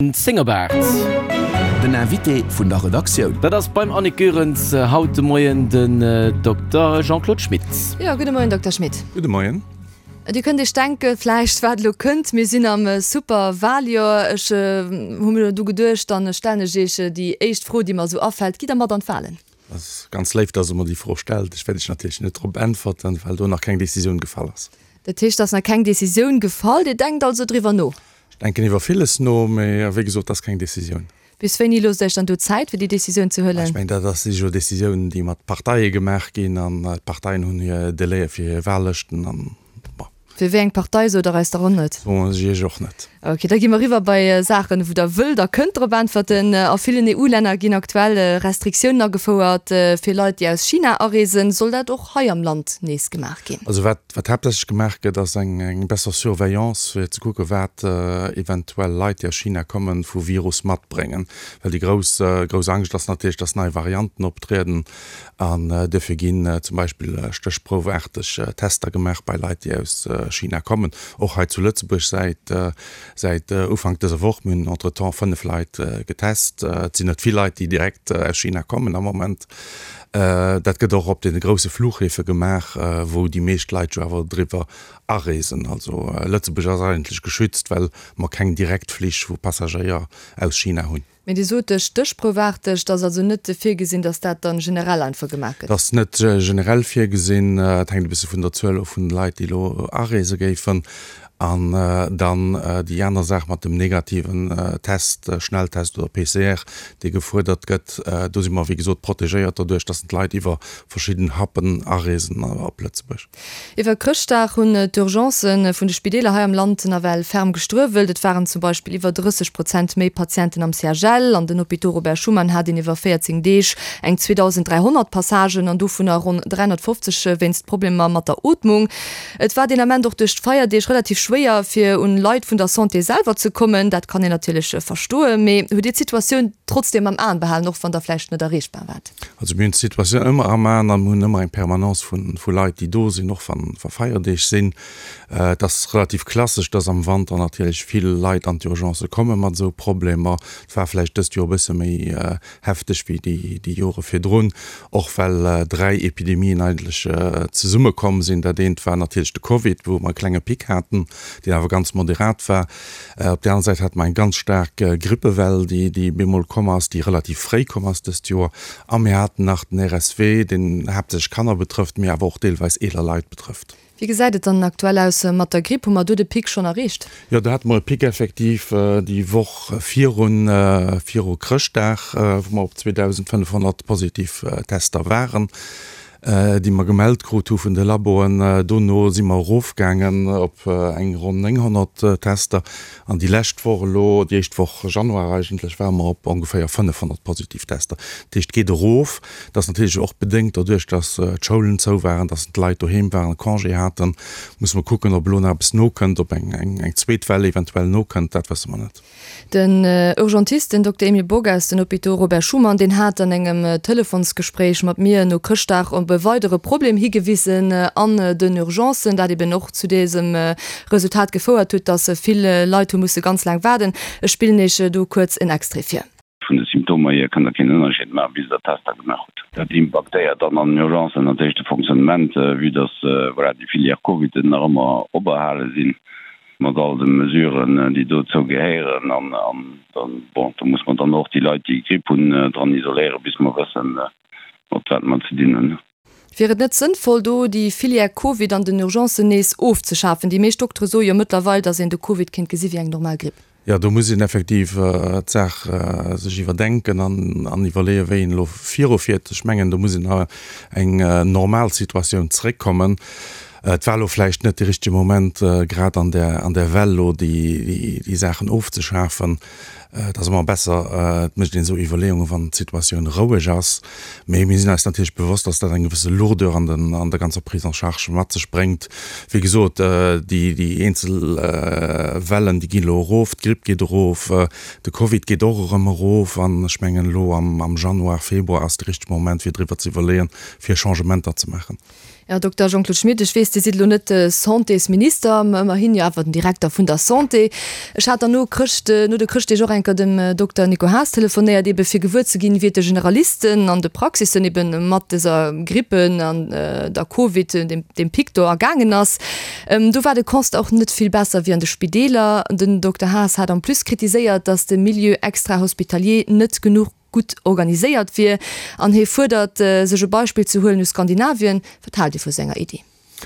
Zéngerbaart. Den Invité vun der Redaktioun. Dat ass beim Annick Goerens haut de Moien den Dokter Jean-Claude Schmit. Jo, gudde Moien, Dokter Schmit. Gudde Moien. Dir kënnt Iech denke vläicht, wat elo kënnt. Mir sinn am Superwaljoer. Ech hu mir du geduecht, dann stellen ech Iech déi éischt Fro, déi mer esou afält, Gitt Der mat an d'Walen? Dat ass ganz léif, dass Der mer déi Fro stellt. Ech wäert Iech natierlech net drop äntwerten, well do nach keng Decisioun gefall ass. Dat heescht, et ass nach keng Decisioun gefall. Dir denkt also driwwer no? Ech denken iwwer villes no, mee wéi gesot, dat ass keng Decisioun. Bis wéini loosst Der Iech dann do Zäit, fir déi Decisioun ze huelen? Ech mengen, dat ass, si jo Decisiounen, déi mat Parteie gemaach ginn, an d'Parteien hunn hir Délaië fir hir Wahllëschten, an bon. Fir wéi eng Partei sot Der eis der och net? Soen ech Iech och net. Ok, da gi mer eriwwer bei Saachen, wou Der wëllt a kënnt drop äntwerten. A villen EU-Länner ginn aktuell Restriktiounen agefouert fir Leit, déi aus China areesen. Soll dat och hei am Land nees gemaach ginn? Also wat Wat haaptsächlech gemaach gëtt, ass eng besser Surveillance, fir ze kucken, wat eventuell Leit, déi aus China kommen, vu Virus matbréngen. Well déi grouss, grouss Angscht ass natierlech, dass nei Varianten optrieden. An duerfir ginn zum Beispill stéchproufaarteg Tester gemaach bei Leit, déi aus China kommen. Och hei zu Lëtzebuerg säit, säit Ufank dëser Woch. Mir hunn entretemps 5 Leit getest. Et sinn net vill Leit, déi direkt aus China kommen am Moment. Dat gëtt och op deene grousse Fluchhäfe gemaach, wou déi meescht Leit jo awer driwwer areesen. Also Lëtzebuerg ass eigentlech geschützt, well mer keng Direktflich vu Passagéier aus China hunn. Mee Dir sot stéchproufaarteg, et ass also net virgesinn, datt dat dann generell einfach gemaach gëtt? Dat ass net generell virgesinn. Et hänkt e bësse vun der Zuel of vun de Leit, déi elo areese géifen. An dann déi aner Saach mat dem negativen Test, Schnelltest oder PCR, dee gefuerdert gëtt. Do si mer, wéi gesot, protegéiert doduerch, dass d'Leit iwwer verschidden Hubben areesen op Lëtzebuerg. Iwwer Chrëschtdag hunn d'Urgencë vun de Spideeler hei am Land nawell ferm gestruewelt. Et waren zum Beispill iwwer 30 Prozent méi Patienten am CHL. An den Hôpitaux Robert Schuman hat een iwwer 14 Deeg eng 2.300 Passagen an dovunner ronn 350 wéinst Problemer mat der Ootmung. Et war deen Ament och duerch d'Feierdeeg relativ schwéier, fir un Leit vun der Santé selwer ze kommen. Dat kann een natierlech verstoen. Mee hutt Dir d'Situatioun trotzdeem am Aen behalen, och wann Der vläicht net erreechbar waart? Also mir hunn d'Situatioun ëmmer am Aen a mir hunn ëmmer eng Permanence vu Leit, déi do sinn, och wa Feierdeeg sinn. Et ass relativ klassesch, dass am Wanter natierlech vill Leit an d'Urgencë komme mat esou Problemer. Et war vläicht dëst Joer e bësse méi hefteg wéi déi Jore virdrun, och well 3 Epidemien eigentlech zesummekomm sinn. Dat eent war natierlech de Covid, wou mer e klenge Pic haten, deen awer ganz moderat war. Op där aner Säit hate mer eng ganz staark Grippewell, déi bemol komm ass, déi relativ fréi komm ass dëst Joer. A mir haten nach den RSV, deen haaptsächlech Kanner betrëfft, mee awer och deelweis eeler Leit betrëfft. Wéi gesäit et dann aktuell aus mat der Gripp? Hu mer do de Pic schonn erreecht? Jo, do hate mer e Pic effektiv déi Woch virun, viru Chrëschtdag, wou mer op 2.500 positiv Tester waren, déi mer gemellt krut hu vun de Laboen. Dono si mer erofgaangen op eng ronn 900 Tester an déi lescht Woch elo, déi éischt Woch Januar eigentlech, ware mer op ongeféier 500 positiv Tester. Dat heescht, et geet erof. Dat ass natierlech och bedéngt doduerch, datt d'Schoulen zou waren, datt d'Leit doheem waren, Congé haten. Musse mer kucken, ob elo nach eppes nokënnt, ob eng zweet Well eventuell nokënnt, dat wësse mer net. Den Urgentist, den Dokter Emile Bock aus den Hôpitaux Robert Schuman, deen hat an engem Telefonsgespréich mat mir no Chrëschtdag op e weidere Problem higewisen an den Urgencen, dat eben och zu dësem Resultat gefouert huet, datt vill Leit hu musse ganz laang waarden. Ech spillen Iech do kuerz en Extrait vir. Vun de Symptomer hier kënnt Der keen Ënnerscheed maachen, bis Der Tester gemaach hutt. Dat impaktéiert dann an den Urgencen natierlech de Fonctionnement, vue dass, voilà, déi Filière Covid nach ëmmer operhale sinn, mat all de Mesuren, déi dozou gehéieren. An dann, bon, do muss mer dann och déi Leit, déi Gripp hunn, dran isoléieren, bis mer wëssen, mat wat mer ze dinn hunn. Wier et net sënnvoll, do déi Filière Covid an den Urgencen nees ofzeschafen? Déi meescht Doktere soe jo mëttlerweil, datt een de Covid kéint gesi wéi eng normal Gripp. Jo, do muss een effektiv d'Saach sech iwwerdenken an iwwerleeën, wéi een elo virufiert. Ech mengen, do muss een a eng normal Situatioun zréckkommen. Et war elo vläicht net de richtege Moment, grad an där an där Well elo déi Saachen ofzeschafen. Et ass ëmmer besser, et mécht een esou Iwwerleeungen, wann d'Situatioun roueg ass. Mee mir sinn eis natierlech bewosst, dass dat eng gewësse Lourdeur an den, an der ganzer Prise en charge mat sech bréngt. Wéi gesot, déi, déi eenzel Wellen, déi ginn elo erof, d'Gripp geet erof, de Covid geet och erëm erof. An ech mengen, elo am, am Januar, Februar ass de richtege Moment, fir driwwer ze iwwerleeën, fir Changementer ze maachen. Här Dokter Jean-Claude Schmit, ech weess, Dir sidd elo net de Santésminister, mä ëmmerhin jo awer den Direkter vun der Santé. Ech hat dann no Chrëscht, no de Chrëschtdeeg och eng. enker dem Dokter Nico Haas telefonéiert, ebe fir gewuer ze ginn, wéi et de Generalisten an de Praxissen ebe mat dëser Grippe an der Covid, deem Pic do, ergaangen ass. Do war de Constat och net vill besser wéi an de Spideeler. Den Dokter Haas hat en plus kritiséiert, datt de Milieu extra-hospitalier net genuch gutt organiséiert wier an hie fuerdert, sech e Beispill ze huelen u Skandinavien. Wat haalt Dir vu senger Iddi?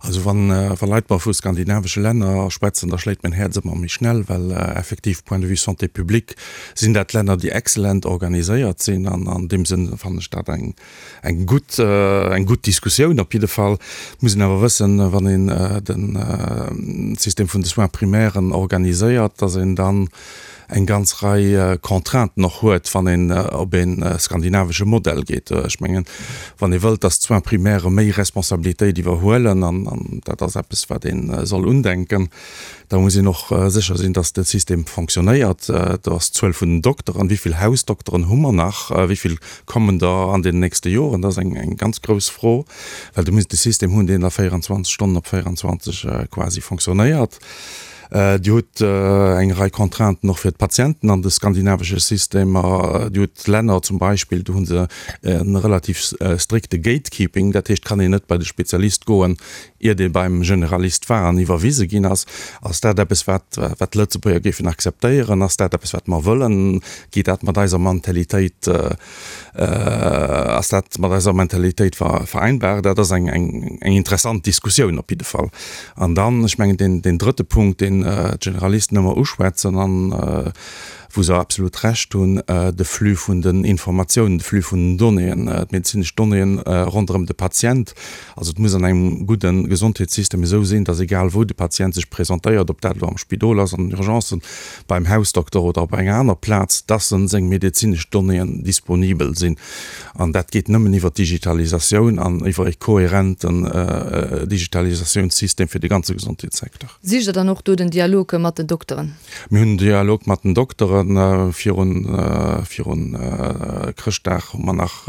Also wann wa Leit mer vu skandinavesche Länner schwätzen, da schléit mäin Häerz ëmmer méi schnell, well effektiv point de vue Santé publique sinn dat Länner, déi excellent organiséiert sinn an an deem Sënn fannen ech dat eng eng gutt eng gutt Diskussioun op jidde Fall. Et muss een awer wëssen, wann een de System vun de Soins primaires organiséiert, dass een dann eng ganz Rei Contrainten och huet, wann een op ee skandinavesche Modell geet. Ech mengen, wann ee wëllt, dass d'Soins primaires méi Responsabilitéit iwwerhuelen, an dat ass eppes, wat ee soll undenken, da muss een och sécher sinn, dass de System fonctionnéiert. Do ass d'Zuel vun den Dokteren, wéi vill Hausdokteren hu mer nach, wéi vill kommen der an den nächste Joren, dat ass eng ganz grouss Fro, well du muss de System hunn, deen da 24 Stonnen op 24 quasi fonctionnéiert. Dir hutt eng Rei Contrainten och fir d'Patienten an de skandinavesche Systemer. Dir hutt Länner zum Beispill, do hu se e relativ strikte Gatekeeping, dat heescht, kann een net bei de Spezialist goen, iert ee beim Generalist war an iwwerwise ginn ass. Ass dat eppes, wat wat d'Lëtzebuerger géifen akzeptéieren? Ass dat eppes, wat mer wëllen? Geet dat mat eiser Mentalitéit Ass dat mat eiser Mentalitéit vereinbar? Dat ass eng interessant Diskussioun op jidde Fall. An dann, ech mengen, deen drëtte Punkt, deen d'Generalisten ëmmer uschwätzen an wou se absolut Recht hunn, de Flux vun den Informatiounen, de Flux vun den Donnéeën, d'medezinesch Donnéeën ronderëm de Patient. Also et muss an engem gudde Gesondheetssystem esou sinn, datt egal wou de Patient sech presentéiert, ob dat elo am Spidol ass, an den Urgencen, beim Hausdokter oder op enger aner Plaz, dass en seng medezinesch Donnéeën disponibel sinn. An dat geet nëmmen iwwer d'Digitalisatioun an iwwer e kohärenten Digitalisatiounssystem fir de ganze Gesondheetssecteur. Sicht Der dann och do den Dialog mat den Dokteren? Mir hunn den Dialog mat den Dokteren. Virun virun Chrëschtdag hu mer nach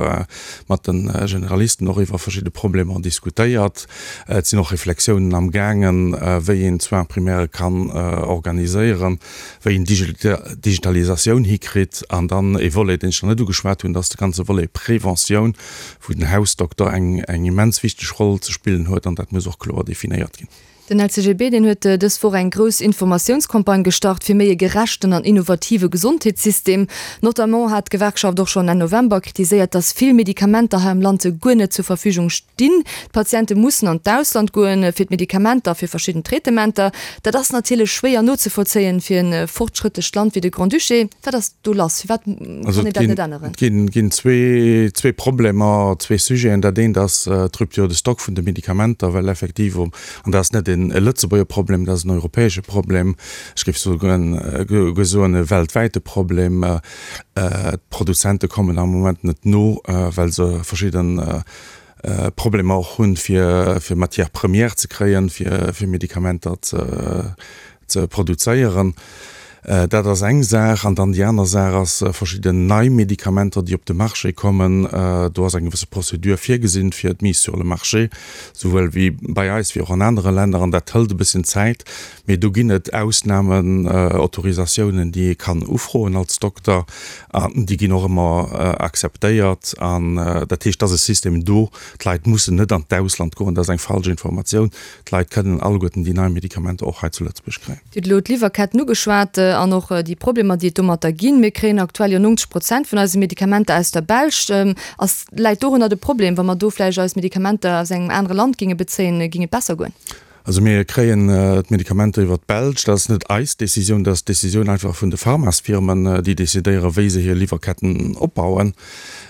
mat de Generalisten och iwwer verschidde Problemer diskutéiert. Et sinn och Reflexiounen am gaangen, wéi een d'Soins primaires kann organiséieren, wéi een d'Digitalisatioun hikritt. An dann e Volet, deen ech nach net ugeschwat hunn, dat ass de ganze Volet Preventioun, wou den Hausdokter eng immens wichteg Roll ze spillen huet. An dat muss och kloer definéiert ginn. Den LCGB, deen huet dës Woch eng grouss Informatiounscampagne gestart fir méi e gerechten an innovative Gesondheetssystem. Notamment hat d'Gewerkschaft och schonn Enn November kritiséiert, datt vill Medikamenter hei am Land guer net zur Verfügung stinn. D'Patiente mussen an d'Ausland goen fir d'Medikamenter a fir verschidden Traitementer. Dat ass natierlech schwéier nozevollzéien fir e fortschrëttlecht Land wéi de Grand-Duché. Wat ass do lass? Firwat kann een dat net änneren? Et ginn zwee Problemer, zwee Sujeten. Dat eent ass d'Rupture de stock vun de Medikamenter, well effektiv An dat ass net e Lëtzebuerger Problem, dat ass en europäesche Problem, ech géif souguer soen e weltwäite Problem. D'Produzente kommen am Moment net no, well se verschidde Problemer och hunn, fir Matières premières ze kréien, fir Medikamenter ze ze produzéieren. Dat ass eng Saach. An dann déi aner Saach ass verschidden nei Medikamenter, déi op de Marché kommen. Do ass eng gewësse Procédure virgesinn fir d'Mise sur le marché, souwuel wéi bei eis wéi och an anere Länner. An dat hëlt e bësschen Zäit. Mee do ginn et Ausnamen, Autorisatiounen, déi ee kann ufroen als Dokter. An déi ginn och ëmmer akzeptéiert. An dat heescht, et ass e System do. D'Leit mussen net an d'Ausland goen. Dat ass eng falsch Informatioun. D'Leit kënnen alleguerten déi nei Medikamenter och hei zu Lëtzebuerg kréien. Dir hutt elo d'Liwwerketten ugeschwat an och déi Problemer, déi et domatter ginn. Mir kréien aktuell jo 90 Prozent vun eise Medikamenter aus der Belsch. Ass, läit dorunner de Problem? Wa mer do vläicht eis Medikamenter aus engem anere Land géinge bezéien, géing et besser goen? Also mir kréien d'Medikamenter iwwer d'Belsch. Dat ass net eis Decisioun, dat ass d'Decisioun einfach vun de Pharmasfirmen, déi decidéieren, wéi se hir Liwwerketten opbauen.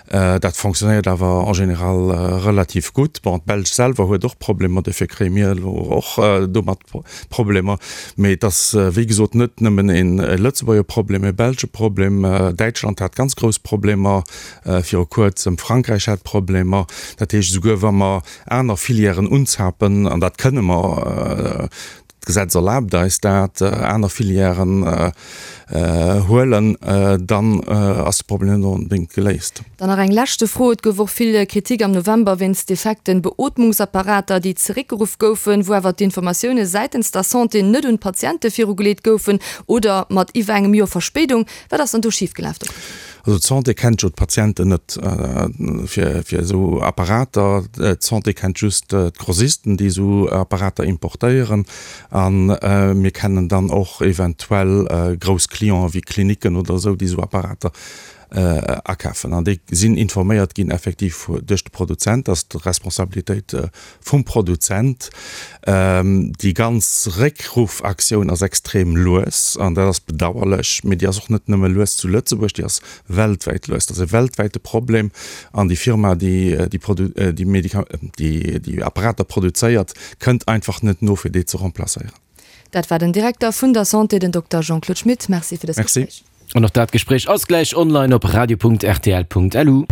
Dat fonctionnéiert awer en général relativ gutt. Bon, d'Belsch selwer huet och Problemer, dofir kréie mir elo och domat Problemer. Mee et ass, wéi gesot, net nëmmen e Lëtzebuerger Problem, e belsche Problem. Däitschland hat ganz grouss Problemer viru Kuerzem, Frankräich hat Problemer. Dat heescht, esouguer wa mer aner Filièren unzapen, an dat kënne mer. d'Gesetz erlaabt eis dat, aner Filièren huelen, dann ass de Problem net onbedéngt geléist. Dann nach eng leschte Fro, Et gouf och vill Kritik am November wéinst defekten Beootmungsapparater, déi zeréckgeruff goufen, wou awer d'Informatioune säitens der Santé net un d'Patiente virugeleet goufen oder mat iwwer engem Joer Verspéidung. Wat ass dann do schifgelaf, Dokter Schmit? Also d'Santé kennt jo d'Patienten net fir esou Apparater. D'Santé kennt just d'Grossisten, déi esou Apparater importéieren. A mir kennen dann och eventuell grouss Clienten wéi Klinicken oder esou, déi esou Apparater akafen. An déi sinn informéiert ginn effektiv duerch de Produzent. Dat ass d'Responsabilitéit vum Produzent. Déi ganz Réckruffaktioun ass extrem lues an dat ass bedauerlech. Mee déi ass och net nëmme lues zu Lëtzebuerg, déi ass weltwäit lues. Dat ass e weltwäite Problem an déi Firma, déi déi Apparater produzéiert, kënnt einfach net no, fir déi ze remplacéieren. Dat war den Direkter vun der Santé, den Dokter Jean-Claude Schmit. Merci fir dëst Gespréich. An och dat Gespréich ass gläich online op radio.rtl.lu.